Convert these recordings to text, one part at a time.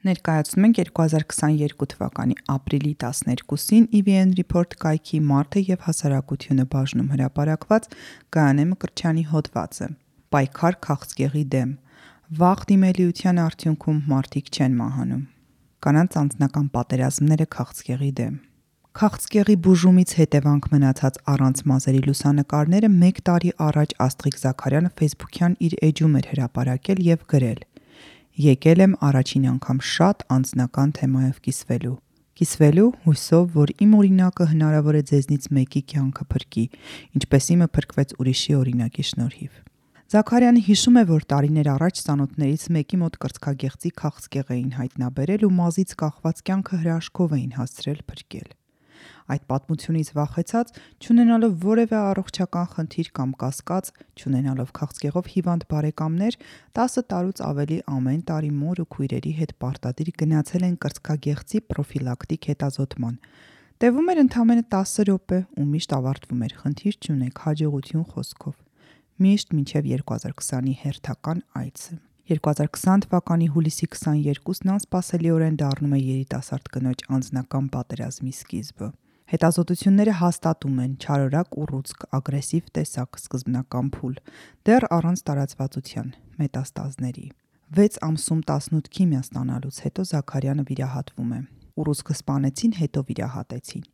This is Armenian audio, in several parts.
Ներկայացնում ենք 2022 թվականի ապրիլի 12-ին EVN Report կայքի մարդը եւ հասարակությունը բաժնում հրապարակված Գայանե Մկրտչյանի հոդվածը։ Պայքար քաղցկեղի դեմ։ Վաղ դիմելիության արդյունքում մարդիկ չեն մահանում։ Կանանց անձնական պատերազմները քաղցկեղի դեմ։ Քաղցկեղի բուժումից հետևանք մնացած առանց մազերի լուսանկարները 1 տարի առաջ Աստղիկ Զաքարյանը Facebook-յան իր էջում էր հրապարակել եւ գրել. Եկել եմ առաջին անգամ շատ անձնական թեմայով կիսվելու հույսով, որ իմ օրինակը հնարավոր է ձեզնից մեկի կյանքը փրկի, ինչպես իմը փրկվեց ուրիշի օրինակի շնորհիվ։ Զաքարյանը հիշում է, որ տարիներ առաջ ծանոթներից մեկի մոտ կրծքագեղձի քաղցկեղ էին հայտնաբերել ու մազից կախված կյանքը հրաշքով էին հասցրել փրկել։ Այդ պատմությունից վախեցած, չունենալով որևէ առողջական խնդիր կամ կասկած, չունենալով քաղցկեղով հիվանդ բարեկամներ, 10 տարուց ավելի ամեն տարի մոր ու քույրերի հետ պարտադիր գնացել են կրծքագեղձի պրոֆիլակտիկ հետազոտման։ Տևում էր ընդամենը 10 րոպե ու միշտ ավարտվում էր խնդիր չունեք, հաջողություն խոսքով։ Միշտ մինչև 2020-ի հերթական այցը։ 2020 թվականի հուլիսի 22-ն անսպասելիորեն դառնում է երիտասարդ կնոջ անձնական պատերազմի սկիզբը։ Հետազոտությունները հաստատում են չարորակ ուռուցք, ագրեսիվ տեսակ, սկզբնական փուլ, դեռ առանց տարածվածության, մետաստազների։ 6 ամսում 18 քիմիա ստանալուց հետո Զաքարյանը վիրահատվում է։ Ուռուցքը սպանեցին, հետո վիրահատեցին։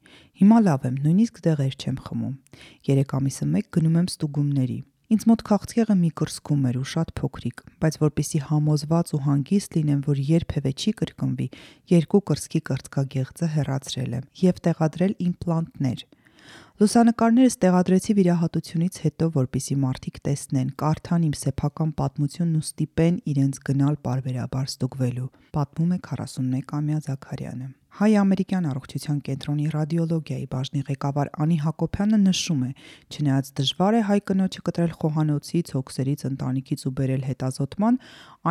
Հիմա լավ եմ, նույնիսկ դեղեր չեմ խմում։ 3 ամիսը մեկ գնում եմ ստուգումների։ Ինձ մոտ քաղցկեղը մի կրծքում էր ու շատ փոքրիկ, բայց որպեսզի համոզված ու հանգիստ լինեմ, որ երբևէ չի կրկնվի, 2 կրծքի կրծքագեղձը հեռացրել եմ եւ տեղադրել իմպլանտներ։ Լուսանկարներս տեղադրեցի վիրահատությունից հետո, որպեսզի մարդիկ տեսնեն, կարդան իմ սեփական պատմությունն ու ստիպեն իրենց գնալ պարբերաբար ստուգվելու, պատմում է 41-ամյա Զաքարյանը։ Հայ-ամերիկյան առողջության կենտրոնի ռադիոլոգիայի բաժնի ղեկավար Անի Հակոբյանը նշում է, չնայած դժվար է հայ կնոջը կտրել խոհանոցից, հոգսերից, ընտանիքից ու բերել հետազոտման,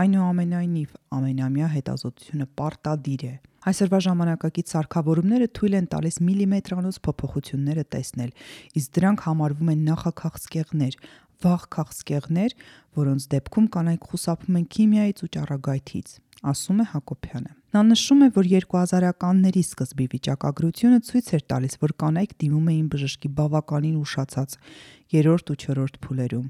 այնուամենայնիվ ամենամյա հետազոտությունը պարտադիր է։ Այսօրվա ժամանակակից սարքավորումները թույլ են տալիս միլիմետրանոց փոփոխությունները տեսնել, իսկ դրանք համարվում են նախաքաղցկեղներ, վաղ քաղցկեղներ, որոնց դեպքում կանայք խուսափում են քիմիայից ու ճառագայթից, ասում է Հակոբյանը։ Նա նշում է, որ 2000-ականների սկզբի վիճակագրությունը ցույց էր տալիս, որ կանայք դիմում էին բժշկի բավականին ուշացած 3-րդ ու 4-րդ փուլերում։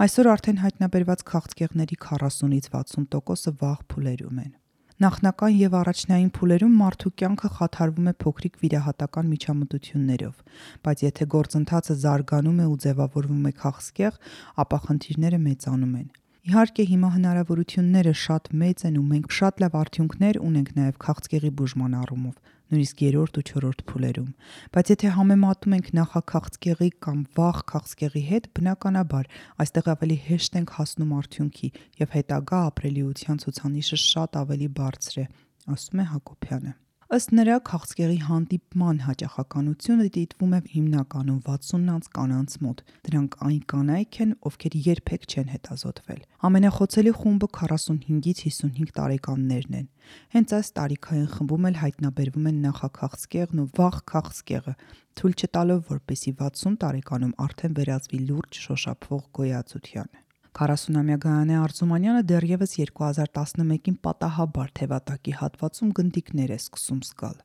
Այսօր արդեն հայտնաբերված քաղցկեղների 40-ից 60%-ը վաղ փուլերում են։ Նախնական եւ առաջնային փուլերում մարդու կյանքը խաթարվում է փոքրիկ վիրահատական միջամտություններով, բայց եթե գործընթացը զարգանում է ու ձևավորվում է քաղցկեղ, ապա խնդիրները մեծանում են։ Իհարկե հիմա հնարավորությունները շատ մեծ են ու մենք շատ լավ արդյունքներ ունենք նաև քաղցկեղի բուժման առումով, նույնիսկ 3-րդ ու 4-րդ փուլերում, բայց եթե համեմատում ենք նախաքաղցկեղի կամ վաղ քաղցկեղի հետ, բնականաբար այստեղ ավելի հեշտ ենք հասնում արդյունքի եւ հետագա ապրելիության ցուցանիշը շատ ավելի բարձր է, ասում է Հակոբյանը։ Ըստ նրա, քաղցկեղի հանդիպման հաճախականությունը դիտվում է հիմնականում 60-ից կանանց մոտ։ Դրանք այն կանայք են, ովքեր երբեք չեն հետազոտվել։ Ամենախոցելի խումբը 45-ից 55 տարեկաններն են։ Հենց այս տարիքային խմբում էլ հայտնաբերվում են նախաքաղցկեղն ու վաղ քաղցկեղը, թույլ չտալով, որպեսզի 60 տարեկանում արդեն վերածվի լուրջ շոշափվող գոյացության։ 40-ամյա Գայանե Արզումանյանը դեռևս 2011-ին պատահաբար թևատակի հատվածում գնդիկներ է սկսում զգալ։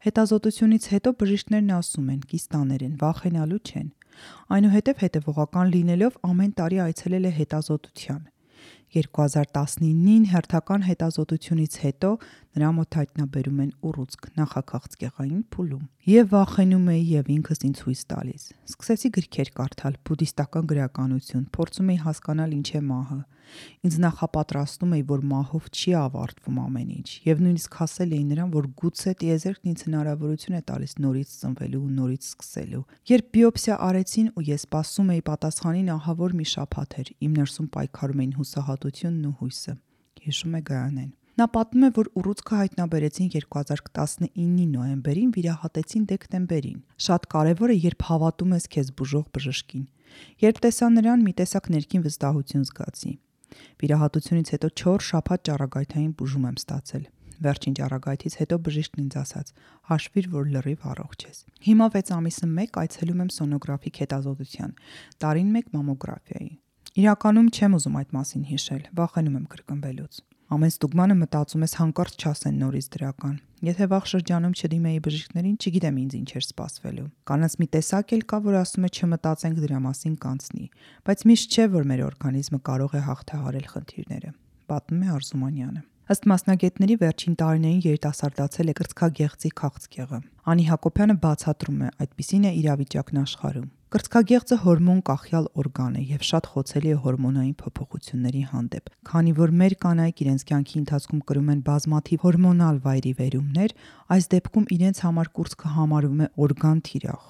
Հետազոտությունից հետո բժիշկներն ասում են, կիստաներ են, վախենալու չեն։ Այնուհետև հետևողական լինելով ամեն տարի այցելել է հետազոտության։ 2019-ին հերթական հետազոտությունից հետո նրա մոտ հայտնաբերում են ուռուցք նախաքաղցկեղային փուլում։ Եվ վախենում էի եւ ինքս ինձ հույս տալիս։ Սկսեցի գրքեր կարդալ, բուդդիստական գրականություն, փորձում էի հասկանալ ինչ է մահը։ Ինձ նախապատրաստում էի, որ մահով չի ավարտվում ամեն ինչ, եւ նույնիսկ ասել էի նրան, որ գուցե տիեզերքն ինձ հնարավորություն է տալիս նորից ծնվելու ու նորից սկսելու։ Երբ բիոպսիա արեցին ու ես սպասում էի պատասխանին, ահավոր մի շաբաթ էր, իմ ներսում պայքարում էին հուսահատությունն ու հույսը, հիշում է Գայանեն։ Նա պատմում է, որ ուռուցքը հայտնաբերեցին 2019-ի նոյեմբերին, վիրահատեցին դեկտեմբերին։ Շատ կարևոր է, երբ հավատում ես քեզ բուժող բժշկին։ Երբ տեսա նրան, մի տեսակ ներքին վստահություն զգացի։ Վիրահատությունից հետո 4 շաբաթ ճառագայթային բուժում եմ ստացել։ Վերջին ճառագայթից հետո բժիշկն ինձ ասաց. «Հաշվիր, որ լրիվ առողջ ես»։ Հիմա 6 ամիսը մեկ այցելում եմ սոնոգրաֆիկ հետազոտության, տարին մեկ մամոգրաֆիայի։ Իրականում չեմ ուզում այդ մասին հիշել, վախենում եմ կրկնվելուց։ Ամեն ստուգմանը մտածում ես հանկարծ չասեն նորից դրական։ Եթե վաղ շրջանում չդիմեի բժիշկներին, չգիտեմ ինձ ինչ էր սպասվելու։ Կանանց մի տեսակ էլ կա, որ ասում է չմտածենք դրա մասին կանցնի, բայց միշտ չէ, որ մեր օրգանիզմը կարող է հաղթահարել խնդիրները։ Պատմում է Արզումանյանը։ Ըստ մասնագետների վերջին տարիներին երիտասարդացել է կրծքագեղձի քաղցկեղը։ Անի Հակոբյանը բացատրում է, այդպիսին է իրավիճակն աշխարհում։ Կրծքագեղձը հորմոն կախյալ օրգան է եւ շատ խոցելի է հորմոնային փոփոխությունների հանդեպ։ Քանի որ մեր կանայք իրենց կյանքի ընթացքում կրում են բազմաթիվ հորմոնալ վայրիվերումներ, այս դեպքում իրենց համար կուրծքը համարվում է օրգան թիրախ։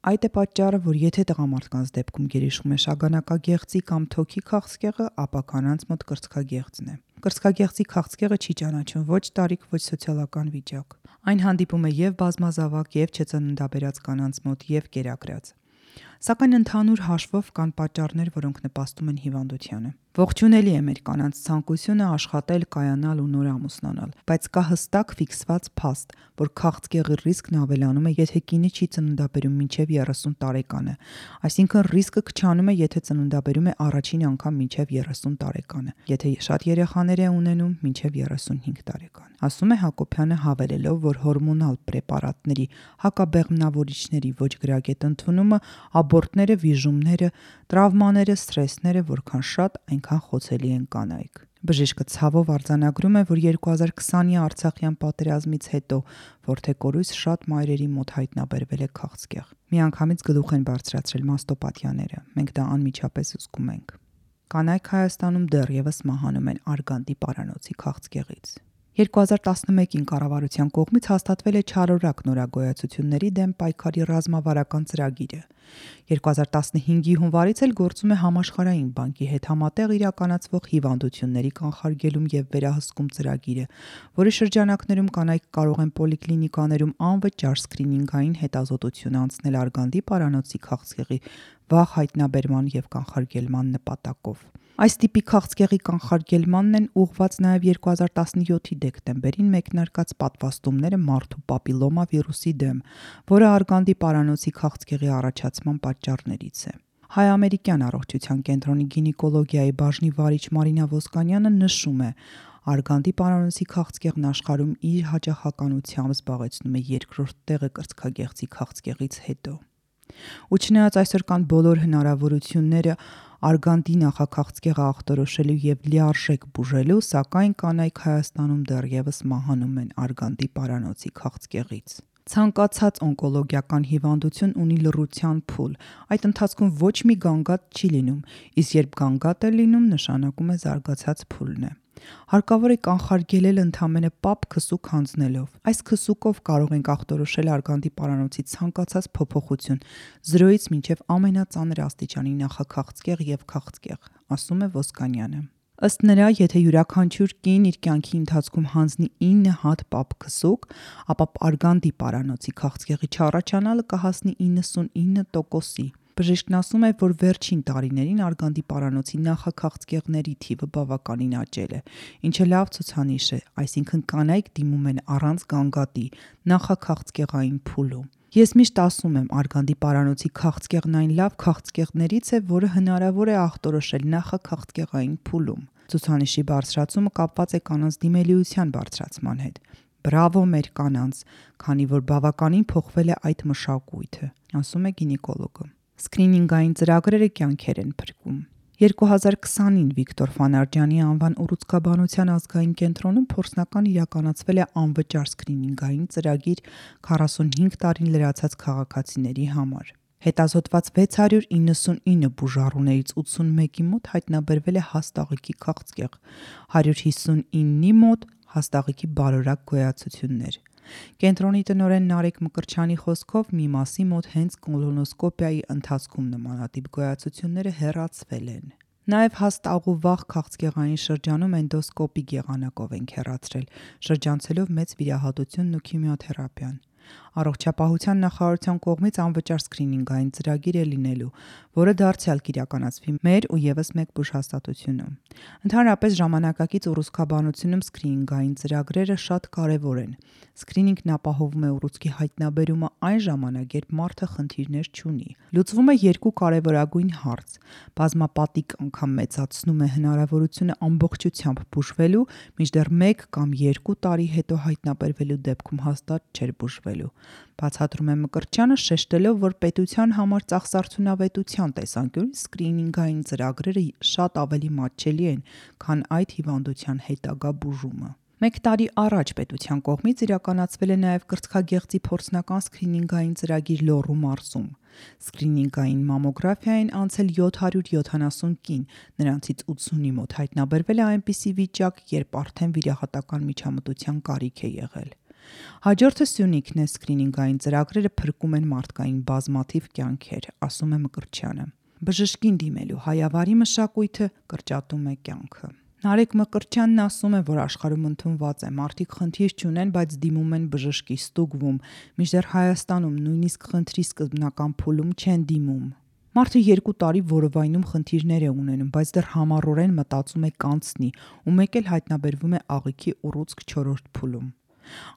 Այդ է պատճառը, որ եթե տղամարդկանց դեպքում գերիշխում է շագանակագեղձի կամ թոքի քաղցկեղը, ապա կանանց մոտ կրծքագեղձն է։ Կրծքագեղձի քաղցկեղը չի ճանաչում ոչ տարիք, ոչ սոցիալական վիճակ։ Այն հանդիպում է եւ բազմազավակ, եւ չծննդաբերած կանանց մոտ, եւ կերակրած։ Սակայն ընդհանուր հաշվով կան պատճառներ, որոնք նպաստում են հիվանդությանը։ Ողջունելի է մեր կանանց ցանկությունը աշխատել, կայանալ ու նոր ամուսնանալ, բայց կա հստակ ֆիքսված փաստ, որ քաղցկեղի ռիսկն ավելանում է, եթե կինը չի ծննդաբերում մինչև 30 տարեկանը, այսինքն ռիսկը քչանում է, եթե ծննդաբերում է առաջին անգամ մինչև 30 տարեկանը, եթե շատ երեխաներ է ունենում մինչև 35 տարեկան։ Ասում է Հակոբյանը, հավելելով, որ հորմոնալ պրեպարատների, հակաբեղմնավորիչների ոչ գրագետ ընդունումը, աբորտները, վիժումները, տրավմաները, սթրեսները որքան շատ, այնքան խոցելի են կանայք։ Բժիշկը ցավով արձանագրում է, որ 2020-ի Արցախյան պատերազմից հետո որդեկորույս շատ մայրերի մոտ հայտնաբերվել է քաղցկեղ։ Միանգամից գլուխ են բարձրացրել մաստոպաթյաները։ Մենք դա անմիջապես զսկում ենք։ Կանայք Հայաստանում դեռևս մահանում են արգանդի պարանոցի քաղցկեղից։ 2011-ին կառավարության կողմից հաստատվել է չարորակ նորագոյացությունների դեմ պայքարի ռազմավարական ծրագիրը։ 2015-ի հունվարից էլ գործում է Համաշխարհային բանկի հետ համատեղ իրականացվող հիվանդությունների կանխարգելում եւ վերահսկում ծրագիրը, որի շրջանակներում կանայք կարող են պոլիկլինիկաներում անվճար սկրինինգային հետազոտություն անցնել արգանդի պարանոցի քաղցկեղի վաղ հայտնաբերման եւ կանխարգելման նպատակով։ Այս տիպի քաղցկեղի կանխարգելմանն են ուղղված նաև 2017-ի դեկտեմբերին մեկնարկած պատվաստումները մարդու պապիլոմա վիրուսի դեմ, որը արգանդի պարանոցի քաղցկեղի առաջացման պատճառներից է։ Հայ-ամերիկյան առողջության կենտրոնի գինեկոլոգիայի բաժնի վարիչ Մարինա Ոսկանյանը նշում է, արգանդի պարանոցի քաղցկեղն աշխարհում իր հաճախականությամբ զբաղեցնում է երկրորդ տեղը կրծքագեղձի քաղցկեղից հետո։ Ու չնայած այսօր կան բոլոր հնարավորությունները արգանդի նախաքաղցկեղը ախտորոշելու եւ լիարժեք բուժելու, սակայն կանայք Հայաստանում դեռևս մահանում են արգանդի պարանոցի քաղցկեղից։ Ցանկացած օնկոլոգիական հիվանդություն ունի լռության փուլ։ Այդ ընթացքում ոչ մի գանգատ չի լինում, իսկ երբ գանգատ է լինում, նշանակում է զարգացած փուլն է։ Հարկավոր է կանխարգելել ընդամենը պապ քսուկ հանձնելով։ Այս քսուկով կարող ենք ախտորոշել արգանդի պարանոցի ցանկացած փոփոխություն 0-ից մինչև ամենածանր աստիճանի նախաքաղցկեղ եւ քաղցկեղ, ասում է Ոսկանյանը։ Ըստ նրա, եթե յուրաքանչյուր կին իր կյանքի ընթացքում հանձնի 9 հատ պապ քսուկ, ապա արգանդի պարանոցի քաղցկեղի չառաջանալը կհասնի 99%-ի։ Բժիշկն ասում է, որ վերջին տարիներին արգանդի պարանոցի նախաքաղցկեղների թիվը բավականին աճել է, ինչը լավ ցուցանիշ է, այսինքն կանայք դիմում են առանց գանգատի նախաքաղցկեղային փուլում։ Ես միշտ ասում եմ, արգանդի պարանոցի քաղցկեղն այն լավ քաղցկեղներից է, որը հնարավոր է ախտորոշել նախաքաղցկեղային փուլում։ Ցուցանիշի բարձրացումը կապված է կանանց դիմելիության բարձրացման հետ։ Բրավո մեր կանանց, քանի որ բավականին փոխվել է այդ մշակույթը, ասում է գինեկոլոգը։ Սկրինինգային ծրագրերը կյանքեր են փրկում։ 2020-ին Վիկտոր Ֆանարջյանի անվան ուռուցքաբանության ազգային կենտրոնում փորձնական իրականացվել է անվճար սկրինինգային ծրագիր 45 տարին լրացած քաղաքացիների համար։ Հետազոտված 699 բուժառուներից 81-ի մոտ հայտնաբերվել է հաստաղիկի քաղցկեղ, 159-ի մոտ հաստաղիկի բարորակ գոյացություններ։ Կենտրոնի տնօրեն Նարեկ Մկրտչյանի խոսքով մի մասի մոտ հենց կոլոնոսկոպիայի ընթացքում նմանատիպ գոյացությունները հեռացվել են։ Նաև հաստաղու վաղ քաղցկեղային շրջանում էնդոսկոպիկ եղանակով ենք հեռացրել, շրջանցելով մեծ վիրահատությունն ու քիմիոթերապիան։ Առողջապահության նախարարության կողմից անվճար սկրինինգային ծրագիր է լինելու, որը դարձյալ կիրականացվի մեր ու եւս մեկ բուժհաստատությունում։ Ընդհանրապես ժամանակակից ուռուցքաբանությունում սկրինինգային ծրագրերը շատ կարևոր են։ Սկրինինգն ապահովում է ուռուցքի հայտնաբերումը այն ժամանակ, երբ մարդը խնդիրներ չունի։ Լուծվում է երկու կարևորագույն հարց՝ բազմապատիկ անգամ մեծացնում է հնարավորությունը ամբողջությամբ բուժվելու, մինչդեռ 1 կամ 2 տարի հետո հայտնաբերվելու դեպքում հաստատ չէր բուժվելու։ Բացատրում է Մկրտչյանը, շեշտելով, որ պետության համար ծախսարդյունավետության տեսանկյունից սկրինինգային ծրագրերը շատ ավելի մատչելի են, քան այդ հիվանդության հետագա բուժումը։ 1 տարի առաջ պետության կողմից իրականացվել է նաև կրծքագեղձի փորձնական սկրինինգային ծրագիր Լոռու մարզում։ Սկրինինգային մամոգրաֆիային անցել 770 կին, նրանցից 80-ի մոտ հայտնաբերվել է այնպիսի վիճակ, երբ արդեն վիրահատական միջամտության կարիք է եղել։ Հաջորդը Սյունիքն է, սկրինինգային ծրագրերը փրկում են մարդկային բազմաթիվ կյանքեր, ասում է Մկրտչյանը։ Բժշկին դիմելու հայավարի մշակույթը կրճատում է կյանքը։ Նարեկ Մկրտչյանն ասում է, որ աշխարհում ընդունված է, մարդիկ խնդիր չունեն, բայց դիմում են բժշկի, ստուգվում, մինչդեռ Հայաստանում նույնիսկ խնդրի սկզբնական փուլում չեն դիմում։ Մարդը 2 տարի որովայնում խնդիրներ է ունենում, բայց դեռ համառորեն մտածում է կանցնի, ու մեկ էլ հայտնաբերվում է աղիքի ուռուցք 4-րդ փուլում։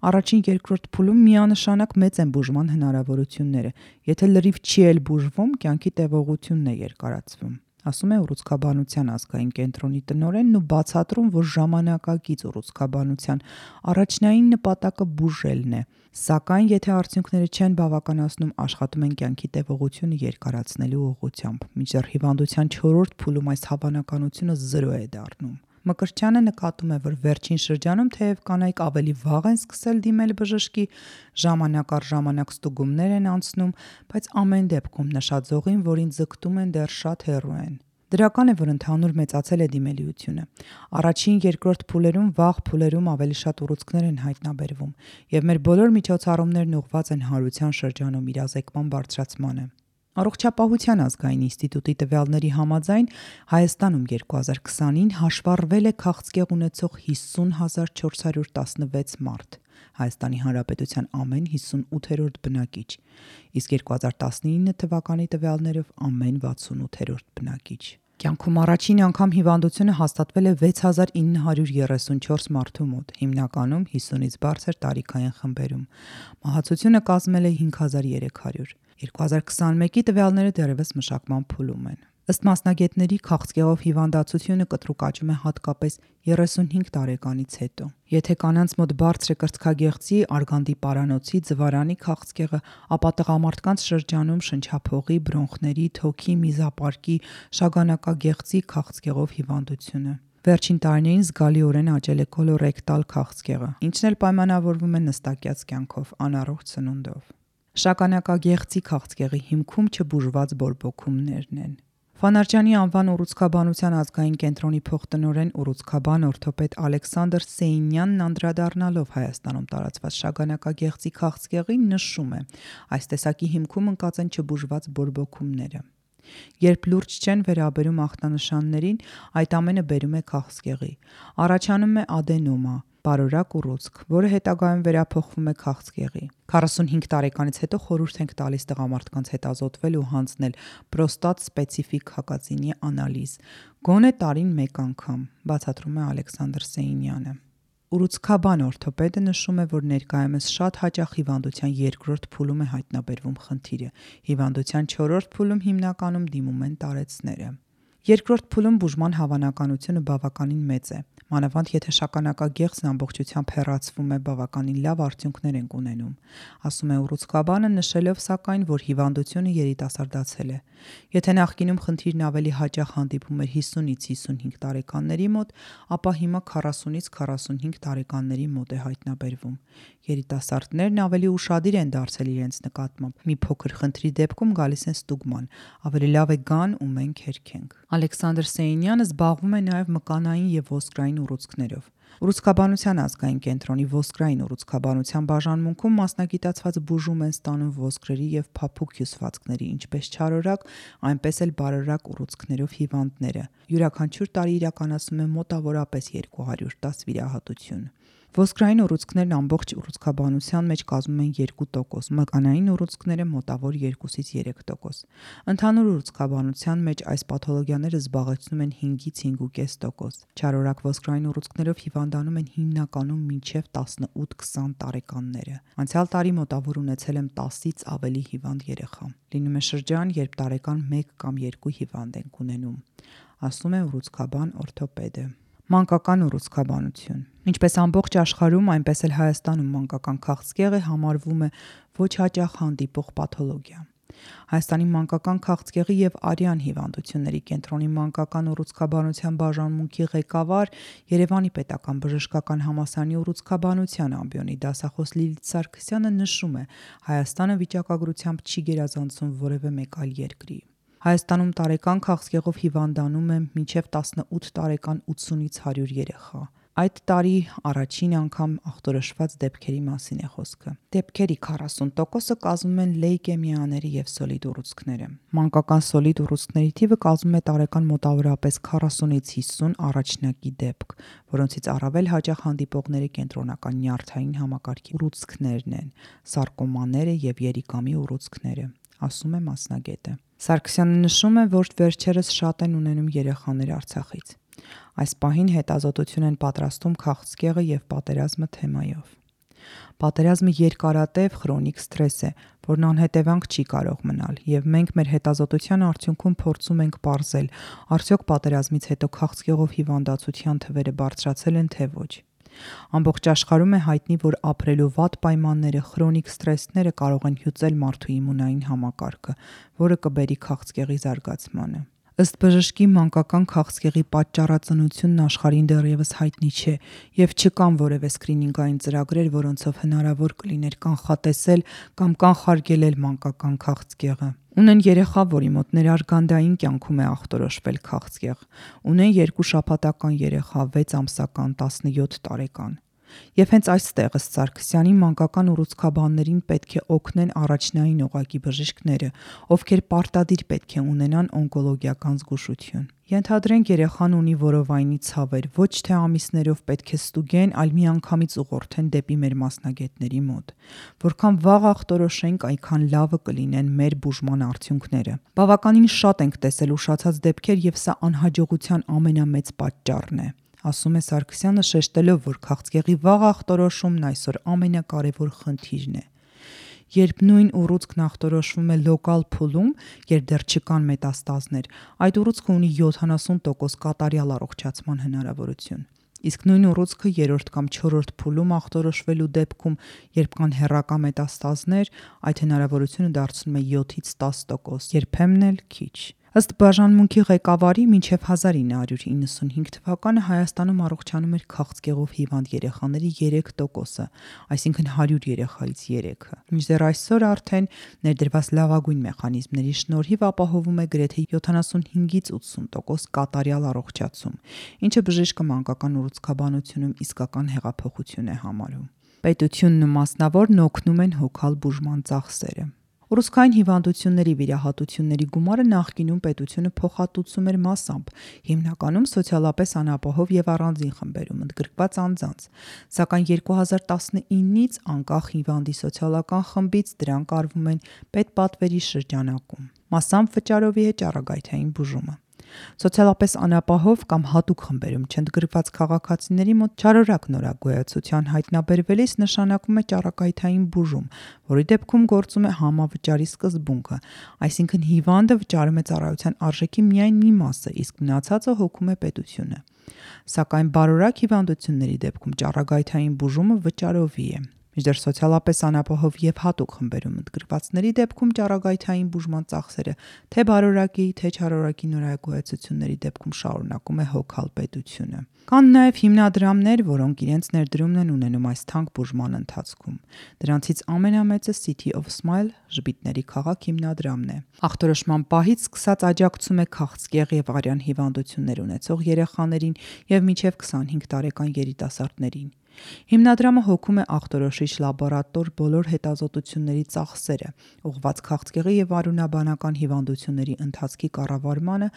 Առաջին 2-րդ փուլում միանշանակ մեծ են բուժման հնարավորությունները, եթե լրիվ չի էլ բուժվում, կյանքի տևողությունն է երկարացվում, ասում է ուռուցքաբանության ազգային կենտրոնի տնօրենն ու բացատրում, որ ժամանակակից ուռուցքաբանության առաջնային նպատակը բուժելն է, սակայն եթե արդյունքները չեն բավականացնում, աշխատում են կյանքի տևողությունը երկարացնելու ուղղությամբ, մինչդեռ հիվանդության 4-րդ փուլում այս հավանականությունը 0 է դառնում։ Մկրտչյանը նկատում է, որ վերջին շրջանում թեև կանայք ավելի վաղ են սկսել դիմել բժշկի, ժամանակ առ ժամանակ ստուգումներ են անցնում, բայց ամեն դեպքում նշաձողին, որին ձգտում են, դեռ շատ հեռու են։ Դրական է, որ ընդհանուր մեծացել է դիմելիությունը։ Առաջին 2-րդ փուլերում, վաղ փուլերում ավելի շատ ուռուցքներ են հայտնաբերվում, եւ մեր բոլոր միջոցառումներն ուղղված են հարության շրջանում իրազեկման բարձրացմանը։ Առողջապահության ազգային ինստիտուտի տվյալների համաձայն Հայաստանում 2020-ին հաշվառվել է քաղցկեղ ունեցող 50,416 մարդ, Հայաստանի Հանրապետության ամեն 58-րդ բնակիչ, իսկ 2019 թվականի տվյալներով ամեն 68-րդ բնակիչ։ Կյանքում առաջին անգամ հիվանդությունը հաստատվել է 6934 մարդու մոտ, հիմնականում 50-ից բարձր տարիքային խմբերում։ Մահացությունը կազմել է 5300։ 2021-ի տվյալները դեռևս մշակման փուլում են։ Ըստ մասնագետների, քաղցկեղով հիվանդացությունը կտրուկ աճում է հատկապես 35 տարեկանից հետո։ Եթե կանանց մոտ բարձր է կրծքագեղձի, արգանդի պարանոցի, ձվարանի քաղցկեղը, ապա տղամարդկանց շրջանում շնչափողի, բրոնխների, թոքի, միզապարկի, շագանակագեղձի քաղցկեղով հիվանդությունը։ Վերջին տարիներին զգալիորեն աճել է կոլորեկտալ քաղցկեղը, ինչն էլ պայմանավորվում է նստակյաց կյանքով, անառողջ սնունդով։ Շագանակագեղձի քաղցկեղի հիմքում չբուժված բորբոքումներն են։ Ֆանարջյանի անվան ուռուցքաբանության ազգային կենտրոնի փոխտնօրեն ուռուցքաբան օրթոպեդ Ալեքսանդր Սեյնյանն անդրադառնալով Հայաստանում տարածված շագանակագեղձի քաղցկեղին նշում է, այս տեսակի հիմքում ընկած են չբուժված բորբոքումները։ Երբ լուրջ չեն վերաբերում ախտանշաններին, այդ ամենը բերում է քաղցկեղի։ Առաջանում է ադենոմա, բարորակ ուռուցք, որը հետագայում վերափոխվում է քաղցկեղի։ 45 տարեկանից հետո խորհուրդ ենք տալիս տղամարդկանց հետազոտվել ու հանձնել պրոստատ սպეციფიկ հակածինի անալիզ, գոնե տարին 1 անգամ, բացատրում է Ալեքսանդր Սեյնյանը։ Ուռուցքաբան օրթոպեդը նշում է, որ ներկայումս շատ հաճախ հիվանդության 2-րդ փուլում է հայտնաբերվում խնդիրը, հիվանդության 4-րդ փուլում հիմնականում դիմում են տարեցները։ 2-րդ փուլում բուժման հավանականությունը բավականին մեծ է, մանավանդ եթե շագանակագեղձն ամբողջությամբ հեռացվում է, բավականին լավ արդյունքներ ենք ունենում, ասում է ուռուցքաբանը, նշելով սակայն, որ հիվանդությունը երիտասարդացել է։ Եթե նախկինում խնդիրն ավելի հաճախ հանդիպում էր 50-ից 55 տարեկանների մոտ, ապա հիմա 40-ից 45 տարեկանների մոտ է հայտնաբերվում։ Երիտասարդներն ավելի ուշադիր են դարձել իրենց նկատմամբ։ Մի փոքր խնդրի դեպքում գալիս են ստուգման, ավելի լավ է գան ու մենք հերքենք։ Ալեքսանդր Սեյնյանը զբաղվում է նաև մկանային եւ ոսկրային ուռուցքներով։ Ուռուցքաբանության ազգային կենտրոնի ոսկրային ուռուցքաբանության բաժանմունքում մասնագիտացված բուժում են ստանում ոսկրերի եւ փափուկ հյուսվածքների, ինչպես չարորակ, այնպես էլ բարորակ ուռուցքներով հիվանդները։ Յուրաքանչյուր տարի իրականացնում է մոտավորապես 210 վիրահատություն։ Ոսկրային ուռուցքներն ամբողջ ուռուցքաբանության մեջ կազմում են 2%, մկանային ուռուցքները մոտավոր 2-ից 3%։ Ընդհանուր ուռուցքաբանության մեջ այս պաթոլոգիաները զբաղեցնում են 5-ից 5.5%։ Չարորակ ոսկրային ուռուցքներով հիվանդանում են հիմնականում մինչև 18-20 տարեկանները։ Անցյալ տարի մոտավոր ունեցել եմ 10-ից ավելի հիվանդ երեխա։ Լինում է շրջան, երբ տարեկան 1 կամ 2 հիվանդ ենք ունենում, ասում է ուռուցքաբան օրթոպեդը։ Մանկական ուռուցքաբանություն։ Ինչպես ամբողջ աշխարհում, այնպես էլ Հայաստանում մանկական քաղցկեղը համարվում է ոչ հաճախ հանդիպող պաթոլոգիա։ Հայաստանի մանկական քաղցկեղի և արյան հիվանդությունների կենտրոնի մանկական ուռուցքաբանության բաժանմունքի ղեկավար, Երևանի պետական բժշկական համալսարանի ուռուցքաբանության ամբիոնի դասախոս Լիլիթ Սարգսյանը նշում է, Հայաստանը վիճակագրությամբ չի գերազանցում որևէ մեկ այլ երկրի։ Հայաստանում տարեկան քաղցկեղով հիվանդանում է մինչև 18 տարեկան 80-ից 100 երեխա։ Այդ տարի առաջին անգամ ախտորոշված դեպքերի մասին է խոսքը։ Դեպքերի 40%-ը կազմում են լեյկեմիաները և սոլիդ ուռուցքները։ Մանկական սոլիդ ուռուցքների թիվը կազմում է տարեկան մոտավորապես 40-ից 50 առաջնակի դեպք, որոնցից առավել հաճախ հանդիպողները կենտրոնական նյարդային համակարգի ուռուցքներն են, սարկոմաները և երիկամի ուռուցքները, ասում է մասնագետը։ Սարգսյանը նշում է, որ վերջերս շատ են ունենում երեխաներ Արցախից։ Այս պահին հետազոտություն են պատրաստում քաղցկեղը և պատերազմը թեմայով։ Պատերազմը երկարատև խրոնիկ սթրես է, որն անհետևանք չի կարող մնալ, և մենք մեր հետազոտության արդյունքում փորձում ենք պարզել, արդյոք պատերազմից հետո քաղցկեղով հիվանդացության թվերը բարձրացել են թե ոչ։ Ամբողջ աշխարհում է հայտնի, որ ապրելու վատ պայմանները, խրոնիկ սթրեսները կարող են հյուծել մարդու իմունային համակարգը, որը կբերի քաղցկեղի զարգացմանը։ Ըստ բժշկի, մանկական քաղցկեղի պատճառածնությունն աշխարհին դեռևս հայտնի չէ և չկան որևէ սկրինինգային ծրագրեր, որոնցով հնարավոր կլիներ կանխատեսել կամ կանխարգելել մանկական քաղցկեղը։ Ունեն երեխա, որի մոտ ներարգանդային կյանքում է ախտորոշվել քաղցկեղ։ Ունեն 2 շաբաթական երեխա, 6 ամսական, 17 տարեկան։ Եվ հենց այստեղ ըստ Սարգսյանի մանկական ուռուցքաբաններին պետք է օգնեն առաջնային օղակի բժիշկները, ովքեր պարտադիր պետք է ունենան օնկոլոգիական զգուշություն։ Ենթադրենք երեխան ունի որովայնի ցավեր, ոչ թե ամիսներով պետք է ստուգեն, այլ միանգամից ուղղորդեն դեպի մեր մասնագետների մոտ։ Որքան վաղ ախտորոշենք, այնքան լավը կլինեն մեր բուժման արդյունքները։ Բավականին շատ ենք տեսել ուշացած դեպքեր և սա անհաջողության ամենամեծ պատճառն է, ասում է Սարգսյանը, շեշտելով, որ քաղցկեղի վաղ ախտորոշումն այսօր ամենակարևոր խնդիրն է։ Երբ նույն ուռուցքն ախտորոշվում է լոկալ փուլում, երբ դեռ չկան մետաստազներ, այդ ուռուցքը ունի 70% կատարյալ առողջացման հնարավորություն։ Իսկ նույն ուռուցքը 3-րդ կամ 4-րդ փուլում ախտորոշվելու դեպքում, երբ կան հեռակա մետաստազներ, այդ հնարավորությունը դարձնում է 7-ից 10%, երբեմն էլ քիչ։ Ըստ բաժանմունքի ղեկավարի, մինչև 1995 թվականը Հայաստանում առողջանում էր քաղցկեղով հիվանդ երեխաների 3%-ը, այսինքն 100 երեխայից 3-ը։ Մինչդեռ այսօր արդեն ներդրված լավագույն մեխանիզմների շնորհիվ ապահովում է գրեթե 75-ից 80% կատարյալ առողջացում, ինչը բժիշկը մանկական ուռուցքաբանությունում իսկական հեղափոխություն է համարում։ Պետությունն ու մասնավորն օգնում են հոգալ բուժման ծախսերը։ Ուռուցքային հիվանդությունների վիրահատությունների գումարը նախկինում պետությունը փոխհատուցում էր մասամբ, հիմնականում սոցիալապես անապահով և առանձին խմբերում ընդգրկված անձանց, սակայն 2019-ից անկախ հիվանդի սոցիալական խմբից դրանք արվում են պետպատվերի շրջանակում, մասամբ վճարովի է ճառագայթային բուժումը։ Սոցիալապես անապահով կամ հատուկ խմբերում չընդգրկված քաղաքացիների մոտ չարորակ նորագոյացության հայտնաբերվելիս նշանակում է ճառագայթային բուժում, որի դեպքում գործում է համավճարի սկզբունքը, այսինքն հիվանդը վճարում է ծառայության արժեքի միայն մի մասը, իսկ մնացածը հոգում է պետությունը։ Սակայն բարորակ հիվանդությունների դեպքում ճառագայթային բուժումը վճարովի է։ Մինչդեռ սոցիալապես անապահով և հատուկ խմբերում ընդգրկվածների դեպքում ճառագայթային բուժման ծախսերը թե բարորակի, թե չարորակի նորագոյացությունների դեպքում շարունակում է հոգալ պետությունը։ Կան նաև հիմնադրամներ, որոնք իրենց ներդրումն են ունենում այս թանկ բուժման ընթացքում։ Դրանցից ամենամեծը City of Smile ժպիտների քաղաք հիմնադրամն է։ Ախտորոշման պահից սկսած աջակցում է քաղցկեղ և արյան հիվանդություններ ունեցող երեխաներին և մինչև 25 տարեկան երիտասարդներին։ Հիմնադրամը հոգում է ախտորոշիչ լաբորատոր բոլոր հետազոտությունների ծախսերը, ուղղված քաղցկեղի և արյունաբանական հիվանդությունների ընթացքի կառավարմանը,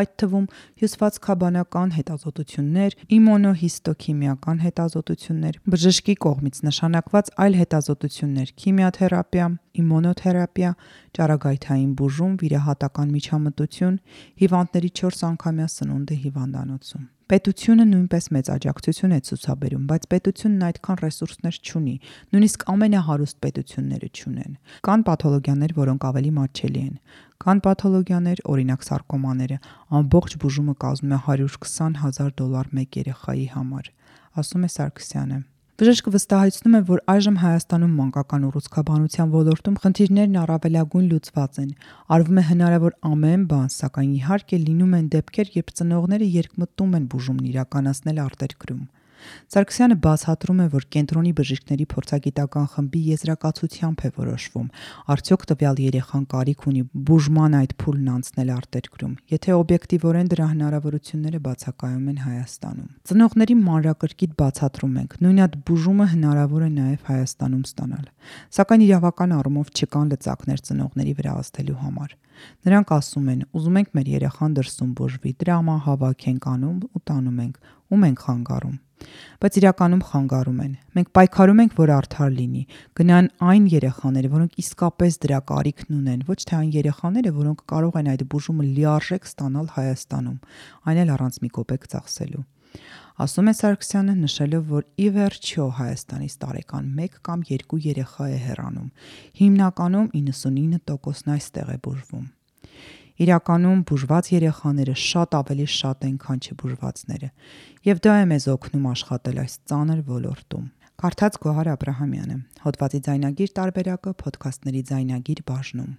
այդ թվում հյուսվածքաբանական հետազոտություններ, իմունոհիստոքիմիական հետազոտություններ, բժշկի կողմից նշանակված այլ հետազոտություններ, քիմիաթերապիա, իմունոթերապիա, ճառագայթային բուժում, վիրահատական միջամտություն, հիվանդների 4 անգամյա սնունդը հիվանդանոցում։ Պետությունը նույնպես մեծ աջակցություն է ցուցաբերում, բայց պետությունն այդքան ռեսուրսներ չունի, նույնիսկ ամենահարուստ պետությունները չունեն։ Կան պաթոլոգիաներ, որոնք ավելի մատչելի են։ Կան պաթոլոգիաներ, օրինակ սարկոմաները, ամբողջ բուժումը կազմում է $120,000 մեկ երեխայի համար, ասում է Սարգսյանը։ Բժիշկը վստահեցնում է, որ այժմ Հայաստանում մանկական ուռուցքաբանության ոլորտում խնդիրներն առավելագույն լուծված են։ Արվում է հնարավոր ամեն բան, սակայն իհարկե լինում են դեպքեր, երբ ծնողները երկմտում են բուժումն իրականացնել արտերկրում։ Սարգսյանը բացատրում է, որ կենտրոնի բժիշկների փորձագիտական խմբի եզրակացությամբ է որոշվում, արդյոք տվյալ երեխան կարիք ունի բուժման այդ փուլն անցնել արտերկրում, եթե օբյեկտիվորեն դրա հնարավորությունները բացակայում են Հայաստանում։ Ծնողների մանրակրկիտ բացատրում ենք, նույն այդ բուժումը հնարավոր է նաև Հայաստանում ստանալ, սակայն իրավական առումով չկան լծակներ ծնողների վրա ազդելու համար։ Նրանք ասում են, ուզում ենք մեր երեխան դրսում բուժվի, դրամա հավաք ենք անում ու տանում ենք, ում ենք խանգարում։ Բայց իրականում խանգարում են։ Մենք պայքարում ենք, որ արդար լինի, գնան այն երեխաները, որոնք իսկապես դրա կարիքն ունեն, ոչ թե այն երեխաները, որոնք կարող են այդ բուժումը լիարժեք ստանալ Հայաստանում, այն էլ առանց մի կոպեկ ծախսելու։ Ասում է Սարգսյանը, նշելով, որ ի վերջո Հայաստանից տարեկան 1 կամ 2 երեխա է հեռանում, հիմնականում 99%-ն այստեղ է բուժվում։ Իրականում բուժված երեխաները շատ ավելի շատ են, քան չբուժվածները, եւ դա է մեզ օգնում աշխատել այս ծանր ոլորտում։ Կարդաց Գոհար Աբրահամյանը, հոդվածի ձայնագիր տարբերակը Փոդքասթների ձայնագիր բաժնում։